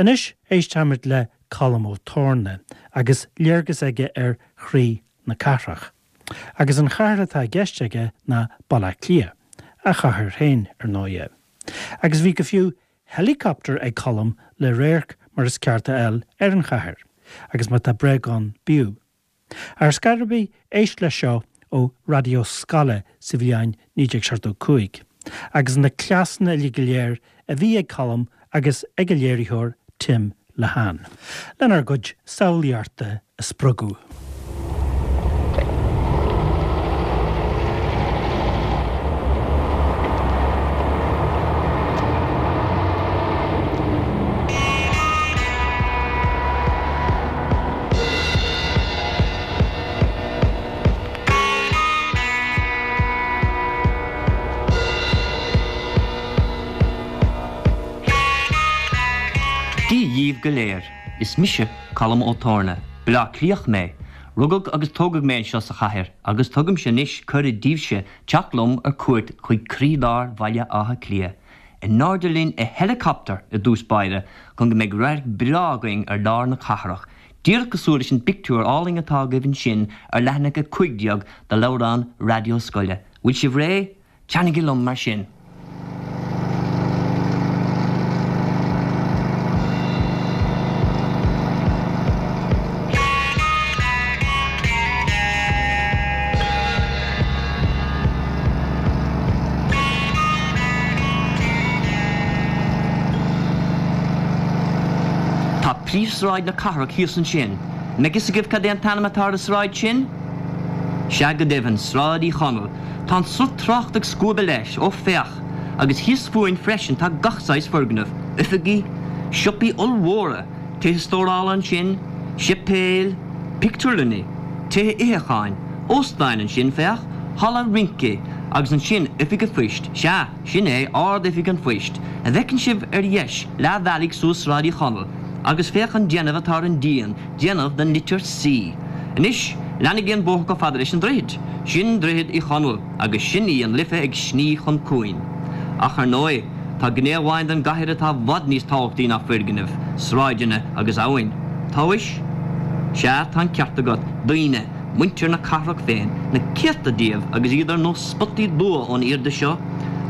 Anois éistfimid le Colm Ó Torna agus léargas aige ar chroí na cathrach. Agus an chathair atá i gceist aige ná Baile Átha Cliath, a chathair féin, ar ndóighe. Agus bhí go fiú helicopter ag Colm le radharc mar is ceart a fháil ar an chathair, agus má tá bréag ann b'fhiú. Ar scor ar bith, éist leis seo ó raidió scoile sa bhliain 1975, agus na cleasanna uilig go léir a bhí ag Colm agus ag a léiritheoir Tim Lehane, lenár gcuid samhlaíochta a spreagadh. Dia dhíbh go léir. Is mise Colm Ó Torna. Baile Átha Cliathach mé. Rugadh agus tógadh mé anseo sa chathair agus tugaimse anois cuireadh daoibhse teacht liom ar cuairt chuig croílár Bhaile Átha Cliath. In airde linn i helicopter i dtús báire chun go mbeidh radharc breá againn ar lár na cathrach, díreach cosúil leis an bpictiúr álainn atá agaibh ansin ar leathanach 15 de leabhrán raidió scoile. Bhfuil sibh réidh? Teannaigí liom mar sin! Tá príomhshráid na cathrach thíos ansin. An mbeidh fhios agaibh cad é an t-ainm atá ar an sráid sin? Sea go deimhin, Sráid Uí Chonaill. Tá an sruth tráchta ag scuabadh leis, ó féach! Agus thíos fúinn freisin tá gach saghas foirgneamh, oifigí, siopaí ollmhóra, tithe stórála ansin, séipéil, pictiúrlanna, tithe itheacháin, óstáin ansin, féach, halla rince, agus ansin oifig an phoist, sea, sin é, Ard-Oifig an Phoist, a bhfeiceann sibh ar dheis, leath bhealaigh suas Sráid Uí Chonaill, agus féach an déanamh atá ar an díon, déanamh den litir C. Anois, leanaigí an bóthar chomh fada leis an droichead. Sin Droichead Uí Chonaill, agus sin í an Life ag sní chun cuain. Ach ar ndóigh, tá gné amháin den gcathair atá i bhfad níos tábhachtaí ná foirgnimh, sráideanna agus abhainn. Tomhais? Sea, tá an ceart agat, daoine, muintir na cathrach féin, na céadta díobh agus iad ar nós spotaí dubha ón airde seo.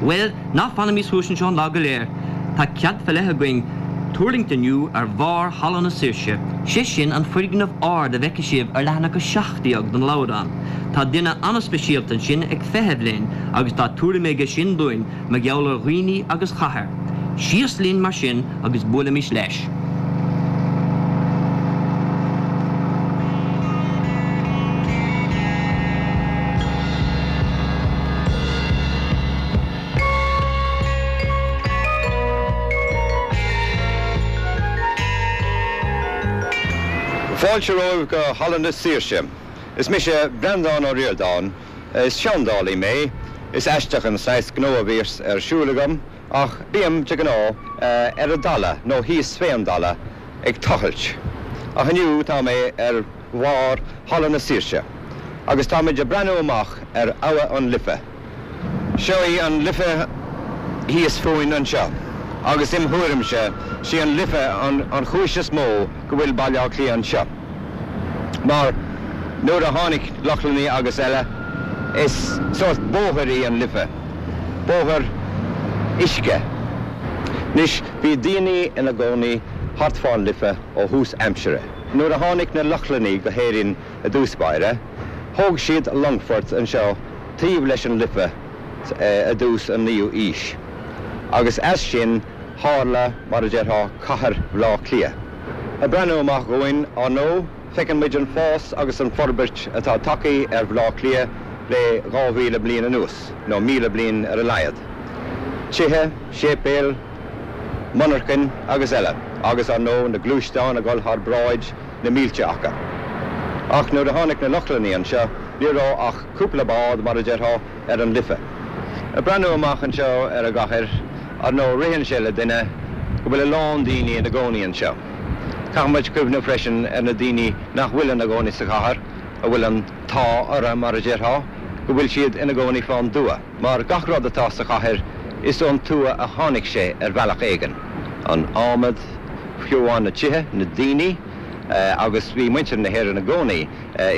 Bhuel, ná fanaimis thuas anseo an lá go léir. Tá cead fé leith againn tuirlingt inniu ar bharr Halla na Saoirse, sé sin an foirgneamh ard a bhfeicfidh sibh ar leathanach 17 den leabhrán. Tá duine an-speisialta ansin ag feitheamh linn agus tá tuairim aige sin dúinn mar gheall ar dhaoine agus chathair. Síos linn mar sin agus buailimis leis. Fáilte romhaibh go Halla na Saoirse. Is mise Breandán Ó Ríordáin. Is seandálaí mé. Is aisteach an saghas gnó a bhíos ar siúl agam ach bím, de ghnáth, ar an dtalamh nó thíos fén dtalamh ag tochailt. Ach inniu tá mé ar bharr Halla na Saoirse agus táimid ag breathnú amach ar Abha an Life. Seo í an Life thíos fúinn anseo agus im thuairimse sí an Life an chúis is mó go bhfuil Baile Átha Cliath anseo. Mar nuair a tháinig Lochlannaigh agus eile is sórt bóthair í an Life, bóthar uisce. Anois bhí daoine ina gcónaí thart fán Life ó thús aimsire. Nuair a tháinig na Lochlannaigh go hÉirinn i dtús báire, thóg siad longfort anseo taobh leis an Life i dtús an naoú aois agus as sin tharla, mar a déarfá, cathair Bhaile Átha Cliath. Ag breathnú amach dhúinn, ar ndóigh, feiceann muid an fás agus an forbairt atá tagtha ar Bhaile Átha Cliath le 2,000 bliain anuas, nó 1,000 bliain ar a laghad. Tithe, séipéil, monarchain agus eile, agus ar ndóigh na gluaisteáin ag dul thar bráid, na mílte acu. Ach nuair a tháinig na Lochlannaigh anseo, ní raibh ach cúpla bád, mar a déarfá, ar an Life. Ag breathnú amach anseo ar an gcathair, ar ndóigh, ritheann sé le duine go bhfuil a lán daoine ina gcónaí anseo. Caithfidh muid cuimhneamh freisin ar na daoine nach bhfuil ina gcónaí sa chathair, a bhfuil an t-ádh orthu, mar a déarfá, go bhfuil siad ina gcónaí fán dtuath. Mar gach rud atá sa chathair, is ón tuath a tháinig sé ar bhealach éigin, an adhmad. fiú amháin na tithe, na daoine, agus bhí muintir na hÉireann i gcónaí,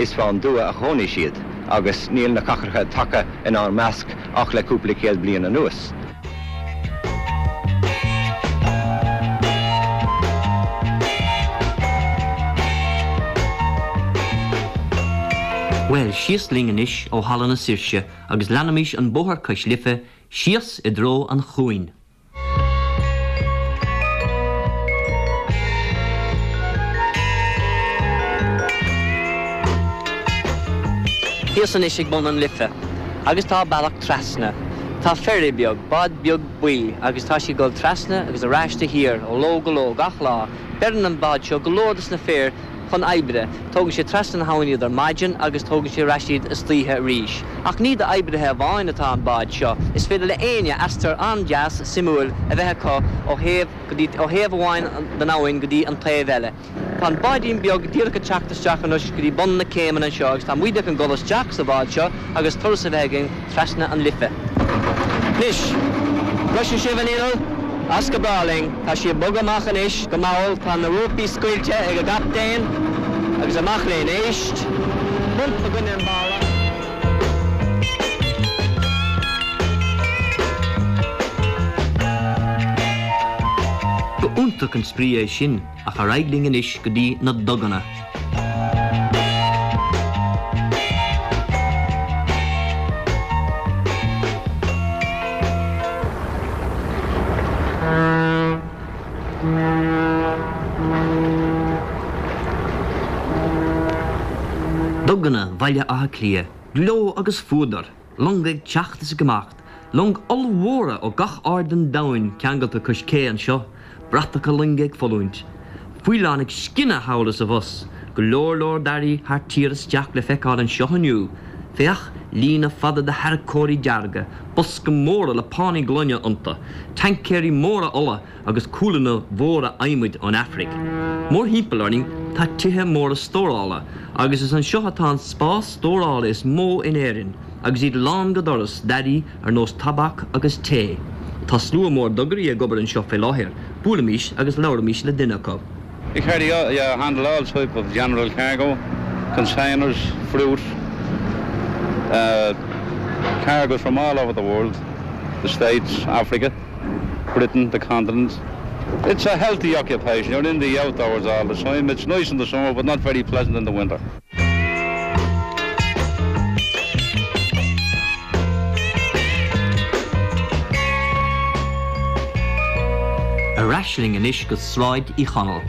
is fán dtuath a chónaigh siad agus níl na cathracha tagtha inár measc ach le cúpla céad bliain anuas. Bhuel, síos linn anois ó Halla na Saoirse agus leanaimis an bóthar cois Life síos i dtreo an chuain. Thíos anois ag bun an Life agus tá bealach trasna. Tá ferry beag, bád beag buí, agus tá sí ag dul trasna agus ar ais de shíor ó ló go ló gach lá. Beireann an bád seo go leor dos na fir chun oibre. Tógann sé trasna na habhann iad ar maidin agus tógann sé ar ais iad istoíche arís. Ach ní d'oibrithe amháin atá an bád seo. Is féidir le éinne aistear an-deas, suimiúil a bheith acu ó thaobh go dtí, ó thaobh amháin den abhainn go dtí an taobh eile. Tá an báidín beag díreach ag teacht isteach anois go dtí bun na céimeanna anseo agus tá muide chun dul isteach sa bhád seo agus turas a bheith againn trasna an Life. Anois, cloiseann sibh an inneall? As go breá linn. Tá sí ag bogadh amach anois go mall. Tá na rópaí scaoilte ag an gcaptaen agus amach linn. Éist! Bump i gcoinne an bhalla. Ba iontach an spraoi é sin ach ar aghaidh linn anois go dtí na duganna. Duganna Bhaile Átha Cliath, gleo agus fuadar, longa ag teacht is ag imeacht, longa ollmhóra ó gach aird den domhain ceangailte cois cé anseo, bratacha loinge ag foluaint, faoileáin ag scinneadh thall is abhus, go leor leor d'earraí thar tír isteach le feiceáil anseo inniu. Féach, líne fada de tharracóirí dearga, boscaí móra le pánaí gloine iontu, taincéirí móra ola agus cualanna mhóra adhmaid ón Afraic. Mórthimpeall orainn tá tithe móra stórála agus is anseo atá an spás stórála is mó in Éirinn agus iad lán go doras d'earraí ar nós tobac agus tae. Tá slua mór dugairí ag obair anseo fé láthair, buailimis agus labhraímis le duine acu. You carry all, you handle all type of general cargo, containers, fruit, uh, cargoes from all over the world, the States, Africa, Britain, the continent. It's a healthy occupation. You're in the outdoors all the time. It's nice in the summer, but not very pleasant in the winter. Ar ais linn anois go Sráid Uí Chonaill.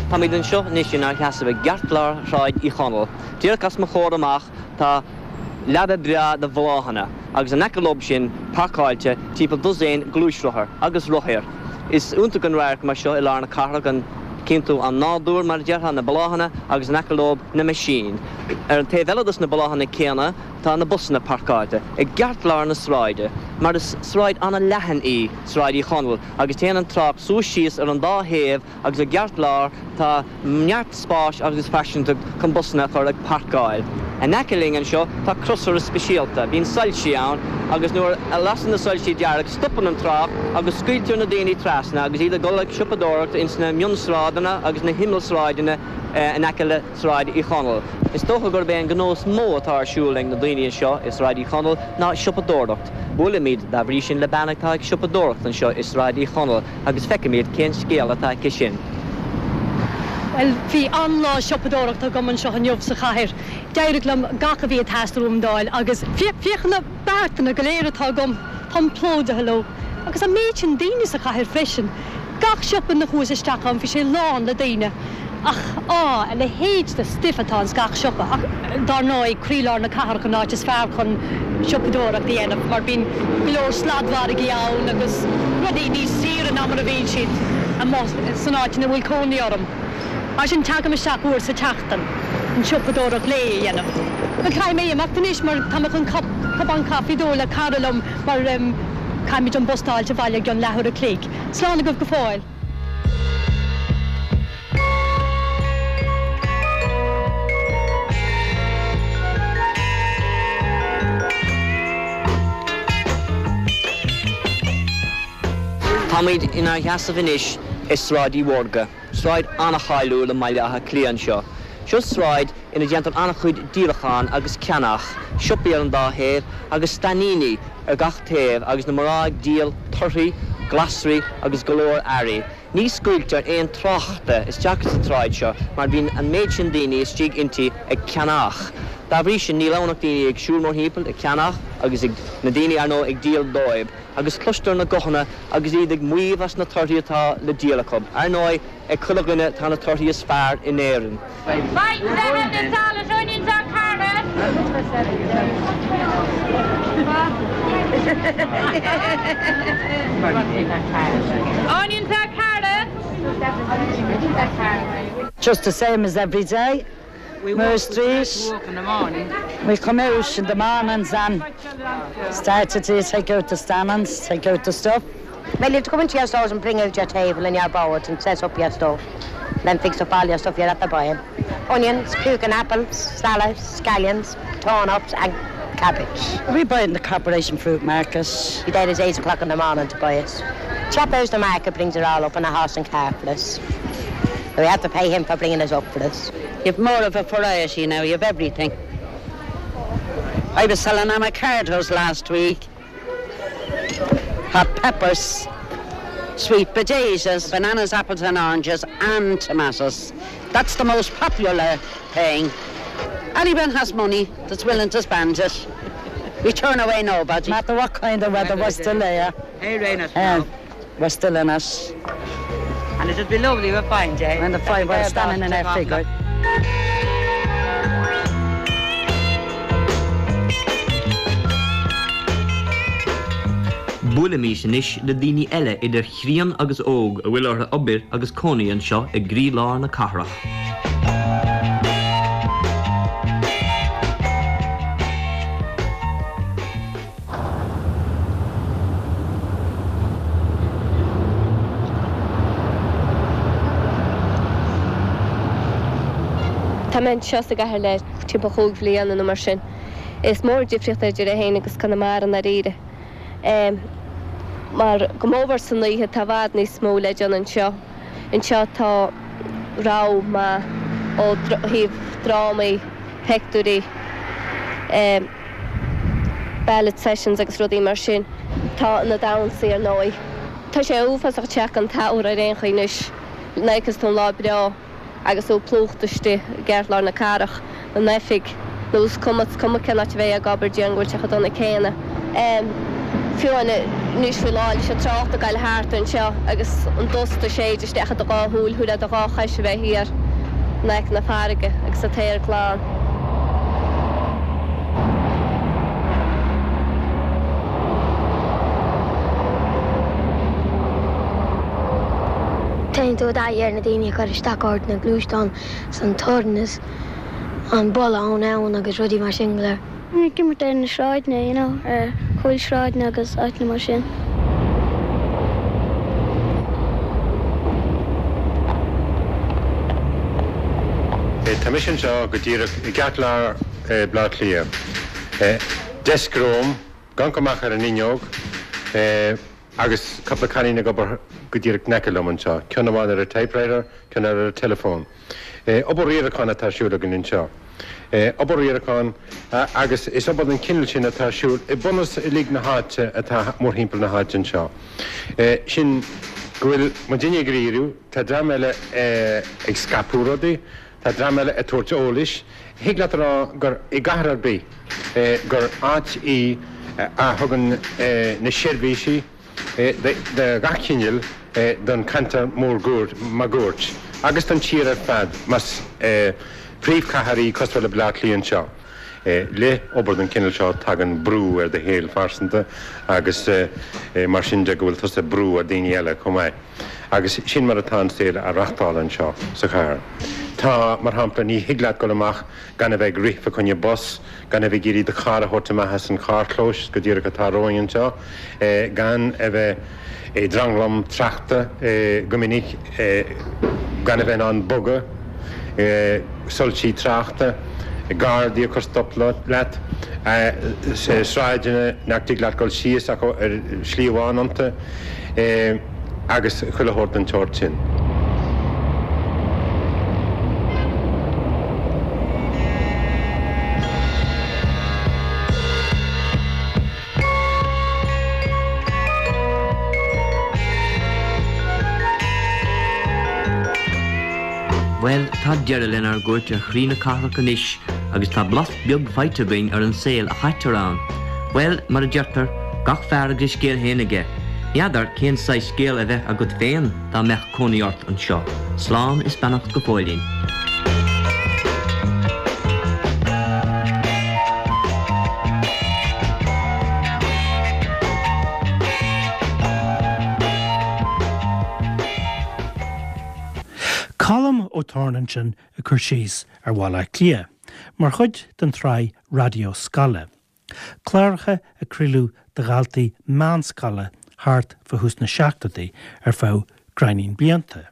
Táimid anseo anois inár sheasamh i gceartlár Shráid Uí Chonaill. Díreach os mo chomhair amach tá leaba breá de bhláthanna agus in aice leob sin páirceáilte timpeall dosaen gluaisrothar agus rothair. Is iontach an radharc mar seo i lár na cathrach, an gcíonn tú an nádúr, mar a déarfá, na bláthanna agus in aice leob na meaisín. Ar an taobh eile dos na bláthanna céanna tá na busanna páirceáilte i gceartlár na sráide, mar is sráid an-leathan í Sráid Uí Chonaill agus téann an trácht suas síos ar an dá thaobh agus i gceartlár tá neart spáis agus fairsingeacht chun busanna a chur ag páirceáil. In aice linn anseo tá crosaire speisialta, bíonn soilsí ann agus nuair a lasann na soilsí dearg stopann an trácht agus scaoiltear na daoine trasna agus iad ag dul ag siopadóireacht ins na mionsráideanna agus na himeallsráideanna in aice le Sráid Uí Chonaill. Is dócha gurb é an gnó is mó atá ar siúl ag na daoine anseo i Sráid Uí Chonaill ná siopadóireacht. Buailimid dá bhrí sin le bean atá ag siopadóireacht anseo i Sráid Uí Chonaill. agus feicfimid cén scéal atá aici sin. Bhuel, bhí an-lá siopadóireachta agam anseo inniu sa chathair. D'éirigh liom gach a bhí ag teastáil uaim d'fháil agus féach na beartanna go léir atá agam, táim plódaithe leo. Agus an méid sin daoine sa chathair freisin. Gach siopa ina chuas isteach ann bhí sé lán le daoine. Ach, á, a leithéid de stuif atá ins gach siopa. Ach, dár ndóigh, croílár na cathrach an áit is fearr chun siopadóireacht a dhéanamh mar bíonn go leor sladmhargaí ann agus rudaí níos saoire ná mar a bhíonn siad amuigh san áit ina bhfuil cónaí orm. Mar sin, tagaim isteach uair sa tseachtain chun siopadóireacht lae a dhéanamh. Bhuel, caithfidh mé imeacht anois mar tá mé chun cupán caife d'ól le cara liom mar caithfimid an bus d'fháilt abhaile i gcionn leathuair a chloig. Slán agaibh go fóill. Táimid inár sheasamh anois i Sráid Uí Mhórdha, sráid an-cháiliúil i mBaile Átha Cliath anseo. Seo sráid ina déantar an-chuid díolachán agus ceannach, siopaí ar an dá thaobh agus stainíní ar gach taobh agus na mná ag díol torthaí, glasraí agus go leor earraí. Ní scaoiltear aon tráchta isteach sa tsráid seo mar bíonn an méid sin daoine istigh inti ag ceannach. Dá bhrí sin níl ann ach daoine ag siúl mórthimpeall ag ceannach agus ag na daoine ar ndóigh ag díol dóibh agus cloistear na guthanna agus iad ag maíomh as na torthaí atá le díol acu. Ar ndóigh ag chuile dhuine tá na torthaí is fearr in Éirinn. Salad, onions or carrots. Onions or carrots. Just the same as every day. Moore Street. We come out in the mornings and start to take out the stands, take out the stuff. Well, you have to come into your stores and bring out your table and your boards and set up your stuff. Then fix up all your stuff you're at the buying. Onions, pukin apples, salads, scallions, turnips and cabbage. We buy in the Corporation Fruit Market. Be there at 8 o'clock in the morning to buy it. Chap out the market brings it all up in a horse and car for us. We have to pay him for bringing it up for us. You've more of a variety now, you've everything. I was selling avocados last week. Hot peppers, sweet potatoes, bananas, apples and oranges and tomatoes. That's the most popular thing. Anyone has money that's willing to spend it. We turn away nobody. No matter what kind of weather we're still there. Hey, rain us um, we're still in it. And it'd be lovely a fine day. And the fine we're standing in our figure. Buailimis anois le daoine eile idir chríon agus óg a bhfuil orthu obair agus cónaí anseo i gcroílár na cathrach. Tá mé anseo sa gcathair le timpeall chúig bhliana nó mar sin. Is mór an difríocht idir é féin agus Conamara i ndáiríre. Mar go mór san oíche tá i bhfad níos mó le déanamh anseo. Anseo tá rogha maith ó thaobh drámaí, pictiúirí, ballet sessions agus rudaí mar sin. Tá na damhsaí ar ndóigh. Tá sé uafásach teacht an tsamhraidh ar aon chaoi anois. Nuair a fheiceas tú an lá breá agus tú plúchta istigh i gceartlár na cathrach, in oifig, nó is cuma, is cuma cén áit a mbeifeá ag obair, déarfainn go bhfuil sé chomh dona céanna. Fiú anois faoi láthair leis an trácht ag goil thart anseo agus an dusta ag séideadh isteach i do dhá shúil, shílfeá do dhá chois a bheith thiar in aice na farraige agus an t-aer glan. Téann tú i dtaithí ar na daoine ag cur isteach ort, na gluaisteáin 's an torann is an boladh ón abhainn agus rudaí mar sin go léir. Ag imirt ar na sráideanna, you know, ar chúlsráideanna agus áiteanna mar sin. Tá mise anseo go díreach i gceartlár Bhaile Átha Cliath. Deasc romham, gan cur amach ar an fhuinneog, agus cúpla cailín ag obair go díreach in aice liom anseo, ceann amháin ar an typewriter, ceann eile ar an teileafón. Obair riaracháin atá ar siúl againn anseo. Obair riaracháin agus is obair den chineál sin atá ar siúl i mbunús uilig na háite atá mórthimpeall na háite anseo. Sin go bhfuil muidinne ag riaradh, tá dream eile ag scaipeadh rudaí, tá dream eile ag tabhairt eolais. Thig leat a rá gur i gcathair ar bith gur áit í a thugann na seirbhísí de gach cineál don cheantar máguaird agus don tír ar fad más príomhchathair í cosúil le Baile Átha Cliath anseo. Le obair den chineál seo tagann brú ar do shaol phearsanta agus mar sin de go bhfuil tusa ag brú ar daoine eile chomh maith. Agus sin mar atá an saol á reachtáil anseo sa chathair. Tá, mar shampla, ní thig leat dul amach gan a bheith ag rith fa choinne bus, gan a bheith ag iarraidh do charr a thabhairt amach as an charrchlós go díreach atá romhainn anseo, gan a bheith i dtranglam tráchta go minic, gan a bheith in ann bogadh, soilsí tráchta, gardaí ag cur stop leat, sráideanna nach dtig leat dul síos ach ar shlí amháin iontu. agus chuile shórt den tseort sin. Bhuel, tá deireadh lenár gcuairt ar chroí na cathrach anois agus tá blas beag faighte againn ar an saol a chaitear ann. Bhuel, mar a deirtear, gach fear agus a scéal féin aige. N'fheadar cén saghas scéal a bheadh agat féin dá mbeadh cónaí ort anseo. Slán is beannacht go fóillín. Colm Ó Torna ansin ag cur síos ar Bhaile Átha Cliath mar chuid den tsraith Raidió Scoile. Cláracha a craoladh do dhaltaí meánscoile thart fá thús na seachtóidí ar feadh gráinnín blianta.